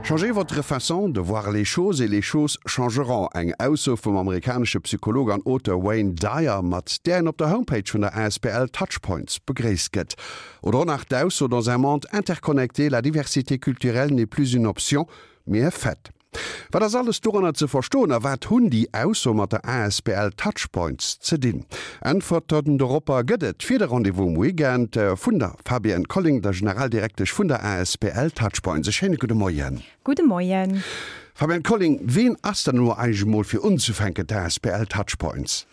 Changez votre façon de voir les choses et les choses changeront, eng Ausso vum amerikanesche Psycholog an Auteur Wayne Dyer, mat där en op der Homepage vun der asbl Touchpoints begréisst gëtt. Oder och nach d'Ausso, Dans un monde interconnecté, la diversité culturelle n'est plus une option, mais un fait. Wat ass alles doranner ze verstoen a wat hunn déi Aussoe mat der asbl Touchpoints ze dinn? Äntwerten doropper gëtt et fir de Rendez-vous um Weekend vun der Fabienne Colling, der Generaldirektesch vun der asbl Touchpoints. E schéine gudde Moien. Gudde Moien. Fabienne Colling, ween ass dann elo eigentlech emol fir unzefänken d'asbl Touchpoints?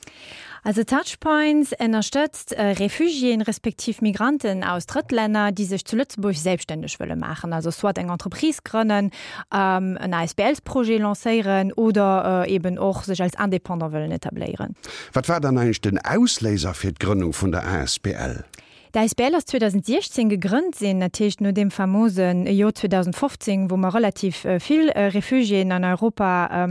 Also Touchpoints ënnerstëtzt Refugiéen respektiv Migranten aus Drëttlänner, déi sech zu Lëtzebuerg selbststänneg wëlle maachen, also soit eng Entreprise grënnen, en ASBLsprojet lancéieren oder eben och sech als Indépendant wëllen etabléieren. Wat war dann eigentlech den Ausléiser fir d'Grënnung vun der asbl? D'asbl ass 2016 gegrënnt sinn, dat heescht no deem famose Joer 2015, wou mer relativ vill Refugiéen an Europa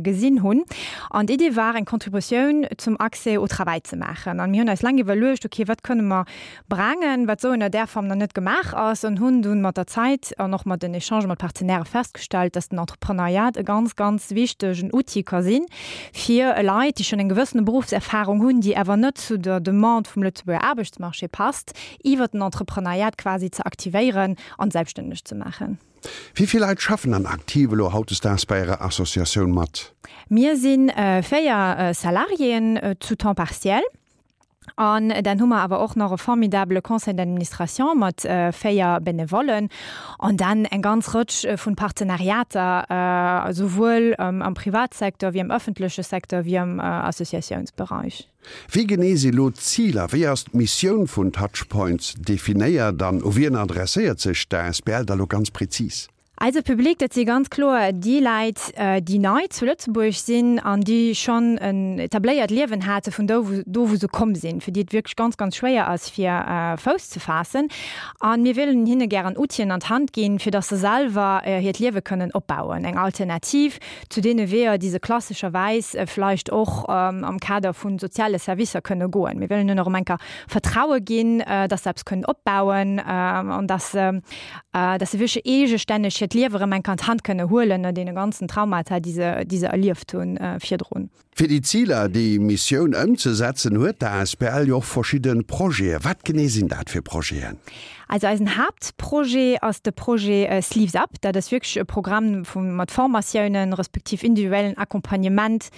gesinn hunn. An d'Idee war, eng Contributioun zum Accès au travail ze maachen. An mir hunn eis laang iwwerluecht, okay, wat kënne mer brengen, wat esou ënner där Form nach net gemaach ass, an hunn dunn mat der Zäit an och mat den Echangë mat Partenairë festgestallt, dass den Entrepreneuriat e ganz, ganz wichtegen Outil ka sinn, fir Leit, déi schonn eng gewëssene Beruffserfahrung hunn, déi awer net zu der Demande vum Lëtzebuerger Aarbechtsmarché passt, iwwert den Entrepreneuriat quasi ze aktivéieren an selbststänneg ze maachen. Wéi vill Leit schaffen dann aktiv elo hautdesdaags bei Ärer Associatioun mat? Mir si 4 Salariéen zu Temps partiel. An dann hu mer awer och nach e formidabele Conseil d'administration mat 4 Benevollen an dann eng ganz Rëtsch vun Partenariater, esouwuel am Privatsecteur wéi am öffentleche Secteur wéi am Associatiounsbereich. Wéi genee si lo d'Ziler, wéi ass d'Missioun vun Touchpoints definéiert an u wien adresséiert sech d'ASBL da lo ganz prezis? Eise Public, dat si ganz kloer déi Läit, déi nei zu Lëtzebuerg sinn an déi schonn en etabléiert Liewen hate vun do, do wou se komm sinn, fir déi et wierklech ganz, ganz schwéier ass, fir Fouss ze faassen. A mir wëllen hinne gären Outien an d'Hand ginn, fir datt se selwer hiert Liewe kënnen opbauen, eng Alternativ zu deene Weeër, déi se klassescherwäis vläicht och am Kader vu soziale Servicer kënne goen. Mir wëllen hinnen och erëm eng Kéier Vertraue ginn, datt se eppes kënnen opbauen an datt se dass se wierklech eegestänneg hiert Liewe rëm eng Kéier an d'Hand kënne huelen no deene ganzen Traumata, déi se, déi se erlieft hu virdrun. Fir déi Ziler, déi Missioun ëmzesetzen, huet d'ASBL jo och verschidde Projeten. Wat genee sinn dat fir Projeten? Also eisen Haaptprojet ass de Projet Sleeves Up. Dat ass wierklech e Programm vu mat Formatiounen, respektiv individuellen Accompagnement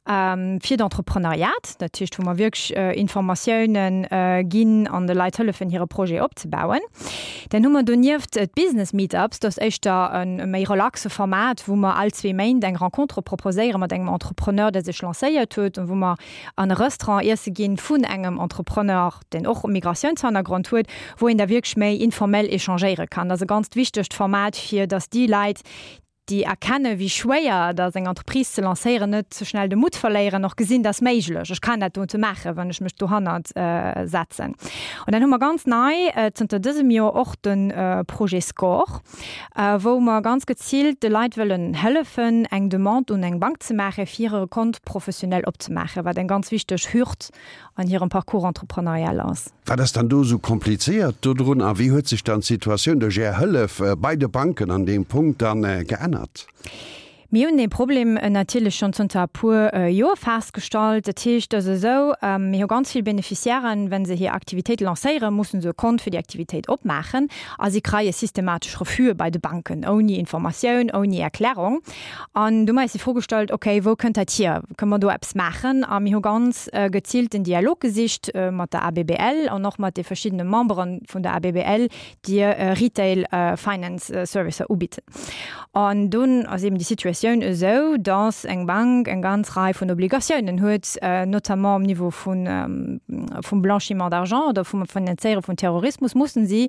fir d'Entrepreneuriat. Dat heescht, wou mer wierklech Informatiounen ginn an de Leit hëllefen, hire Projet opzebauen. Dann hu mer donieft d'Business Meetups. Dat ass éischter e méi relaxe Format, wou mer all zwee Méint eng Rencontre proposéiere mat engem Entrepreneur, dee sech lancéiert huet an wou mer an e Restaurant iesse ginn vun engem Entrepreneur, deen och e Migratiounshannergrond huet, wou een da wierklech méi informell échangéiere kann. Dat ass e ganzt wichtegt Format, fir datt déi Leit, déi erkennen, wéi schwéier et ass, eng Entreprise ze lancéieren, net ze schnell de Mutt verléieren, och gesinn, dat ass méiglech, ech kann dat dote maachen, wann ech mech dohannert setzen. An dann hu mer ganz nei zënter dësem Joer och de Projet SCORE, wou mer ganz geziilt de Leit wëllen hëllefen, eng Demande un eng Bank ze maachen, fir hire Compte professionnel opzemaachen, wat eng ganz wichteg Hürd an hirem Parcours entrepreneurial ass. Wat ass dann do esou komplizéiert dodrun a wéi huet sech dann d'Situatioun duerch Är Hëllef bei de Banken an deem Punkt dann geännert? Mir hunn dee Problem natierlech schonn zënter e puer Joer festgestallt. Dat heescht, et ass esou, mir hu ganz vill Beneficiairen, wa se hir Aktivitéit lancéieren, mussen se e Kont fir déi Aktivitéit opmaachen a si kreie systematesch Refuse bei de Banken, ouni Informatioun, ouni Erklärung. An du hu mer eis déi Fro gestallt, okay, wou kënnt dat hier? Kënne mer do eppes maachen? A mir hu ganz geziilt den Dialog gesicht mat der ABBL an och mat de verschiddene Membere vun der ABBL, déi Retail Finance Servicer ubidden. An dunn ass eben déi Situatioun esou, dass eng Bank eng ganz Rei vun Obligatiounen huet, notamment um Niveau vun, vum Blanchiment d'argent oder vum Finanzéiere vun Terrorismus, mussen si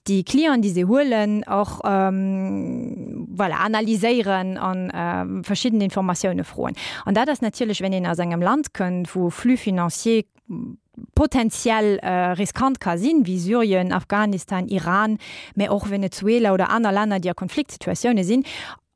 déi Clienten, déi se huelen, och voilà, analyséieren a verschidden Informatioune froen. An dat ass natierlech, wenn een aus engem Land kënnt, wou Flux financiers potenziell riskant ka sinn, wéi Syrien, Afghanistan, Iran, mä och Venezuela oder aner Länner, déi a Konfliktsituatioune sinn.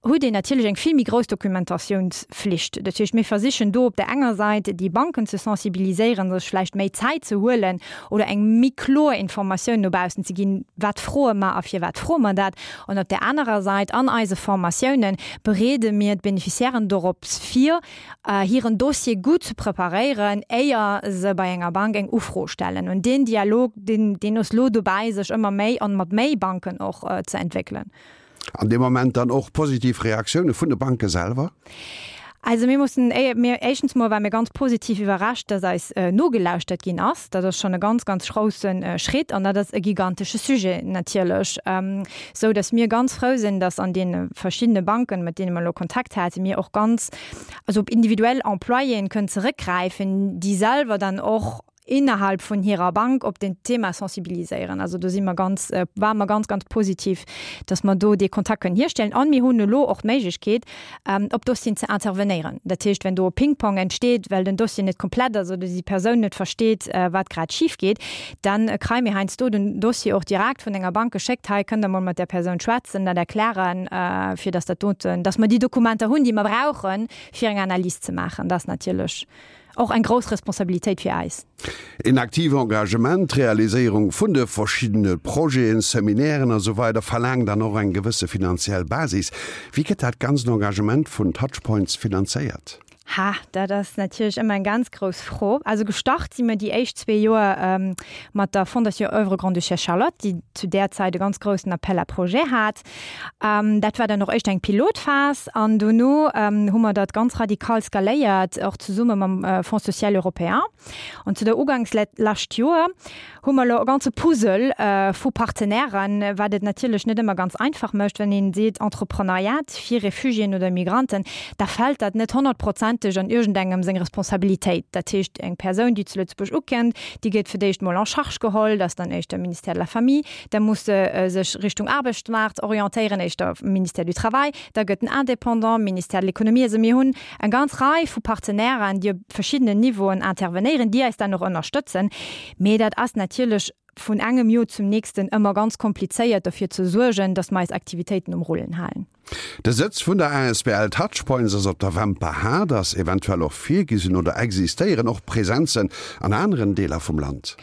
huet een natierlech eng vill méi grouss Dokumentatiounsflicht. Dat heescht, mir versichen do op där enger Säit déi Banken ze sensibiliséieren, sech vläicht méi Zäit ze huelen oder eng méi kloer Informatioun no baussen ze ginn, wat froe mer a firwat froe mer dat. An op där anerer Säit, an eise Formatiounen bereede mir d'Beneficiairen dorops vir, hiren Dossier gutt ze preparéieren, éier se bei enger Bank eng Ufro stellen. An deen Dialog, deen, deen ass lo dobäi, sech ëmmer méi an mat méi Banken och ze entwéckelen. An dee Moment dann och positiv Reaktioune vun de Banke selwer? Also mir mussen, mir, éischtens mol ware mir ganz positiv iwwerrascht, dass eis nogelauschtert ginn ass. Dat ass schonn e ganz, ganz grousse Schritt an dat ass e gigantesche Sujet natierlech, esou dass mir ganz frou sinn, dass an deene verschiddene Banken, mat deene mer elo Kontakt haten, mir och ganz, also op individuell Employéen kënnen zeréckgräifen, déi selwer dann och innerhalb vun hirer Bank op den Thema sensibiliséieren. Also do si mer ganz, ware mer ganz, ganz positiv, dass mer do dee Kontakt kënnen hierstellen. An mir hunn elo och d'Méiglechkeet, op Dossieren ze intervenéieren. Dat heescht, wenn do e Ping-Pong entsteet, well den Dossier net komplett ass oder déi Persoun net versteet, wat grad schif geet, dann kréie mir heiansdo den Dossier och direkt vun enger Bank geschéckt, Hei kënnt Der mol mat där Persoun schwätzen, dat erklären, fir dass dat doten, dass mer déi Dokumenter hunn, déi mer brauchen, fir eng Analys ze maachen. Dat ass natierlech Och eng grouss Responsabilitéit fir äis. Een aktive Engagement, d'Realiséierung vun de verschiddene Projeten, Seminairen a sou weider verlaangt dann och eng gewësse finanziell Basis. Wéi gëtt dat ganzt Engagement vun Touchpoints finanzéiert? Ha, dat ass natierlech ëmmer eng ganz grouss Fro. Also gestart si mir déi éischt zwee Joer mat der Fondation Oeuvre Grande-Duchesse Charlotte, déi zu där Zäit e ganz groussen Appel à projets hat. Dat war dann och éischter eng Pilotphas an dono hu mer dat ganz radikal skaléiert, och zesumme mam Fonds social européen. An zu der Uganks lescht Joer hu mer elo e ganze Puzzle vu Partenairen, wat et natierlech net ëmmer ganz einfach mécht, wenn een seet Entrepreneuriat fir Refugiéen oder Migranten, da fält dat net honnertprozenteg an iergendengem seng Responsabilitéit. Dat heescht, eng Persoun, déi zu Lëtzebuerg ukennt, déi gëtt fir d'éischt mol en charge geholl, dat ass dann éischter Ministère de la Famille, da muss se sech Richtung Aarbechtsmaart orientéieren, éischter Ministère du Travail, da gëtt den Indépendant, Ministère de l'Économie. Also mir hunn eng ganz Rei vu Partenairen, déi op verschiddenen Niveauen intervenéieren, déi eis dann och ënnerstëtzen. Mee dat ass natierlech vun engem Joer zum nächsten ëmmer ganz komplizéiert, derfir ze suergen, datt mer eis Aktivitéiten um Rullen halen. De Sëtz vun der asbl Touchpoints ass op der Wämper Haard. Ass eventuell och virgesinn oder existéieren och Presenzen an aneren Deeler vum Land?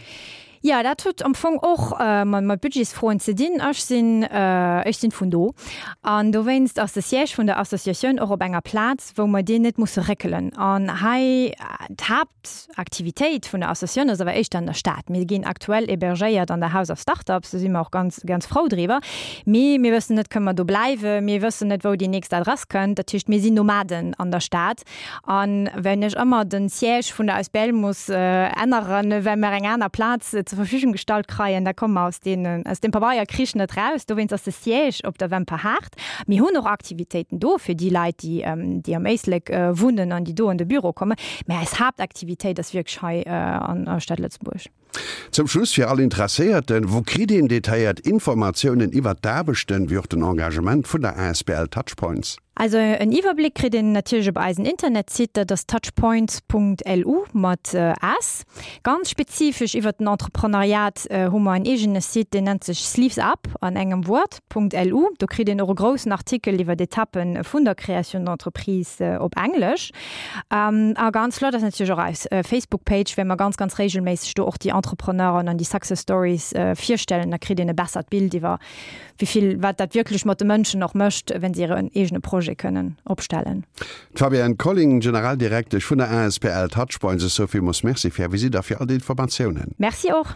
Jo, dat huet am Fong och mat Budgetsfroen ze dinn. Ech sinn, ech sinn vun do an dowéinst ass de Siège vun der Associatioun och op enger Plaz, wou mer deen net musse réckelen. An hei, d'Haaptaktivitéit vun der Associatioun ass awer éischter an der Stad. Mir ginn aktuell hébergéiert an der House of Startups, do si mer och ganz, ganz frou driwwer. Mee mir wëssen net, kënne mer do bleiwen? Mir wëssen net, wou déi nächst Adress kënnt. Dat heescht, mir sinn Nomaden an der Stad. A wenn ech ëmmer de Siège vun der Asbl muss änneren, well mer eng aner Plaz zur Verfügung gestallt kreien, da komme mer aus deenen, aus deem Pabeierkrich net raus. Dowéinst ass de Siège op der Wemperhaart. Mir hunn och Aktivitéiten do fir déi Leit, déi, déi am Éislek wunnen an déi do an de Büro kommen. Mä eis Haaptaktivitéit ass wierklech hei an der Stad Lëtzebuerg. Zum Schluss fir all Interesséierten, Wou kritt een detailléiert Informatiounen iwwert d'Aarbechten, wéi och den Engagement vun der asbl Touchpoints? Also en Iwwerbléck kritt een natierlech op eisen Internetsite, dat ass touchpoints.lu mat s. Ganz spezifesch iwwert den Entreprenariat hu mer en eegene Site, deen nennt sech Sleeves Up an engem Wuert. .lu. Do kritt een och e groussen Artikel iwwer d'Etappe vun der Création d'entreprise op Englesch. A ganz flott ass natierlech och eis Facebook-Page, well mer ganz, ganz regelméisseg do och déi Entrepreneuren an déi Success Stories virstellen. Da kritt een e bessert Bild iwwer wéi vill, wat dat wierklech mat de Mënschen och mécht, wenn se hiren eegene Projet kënnen opstellen. D'Fabienne Colling, Generaldirektesch vun der asbl Touchpoints, ech soe villmools Merci fir Är Visitt a fir all déi Informatiounen. Merci och.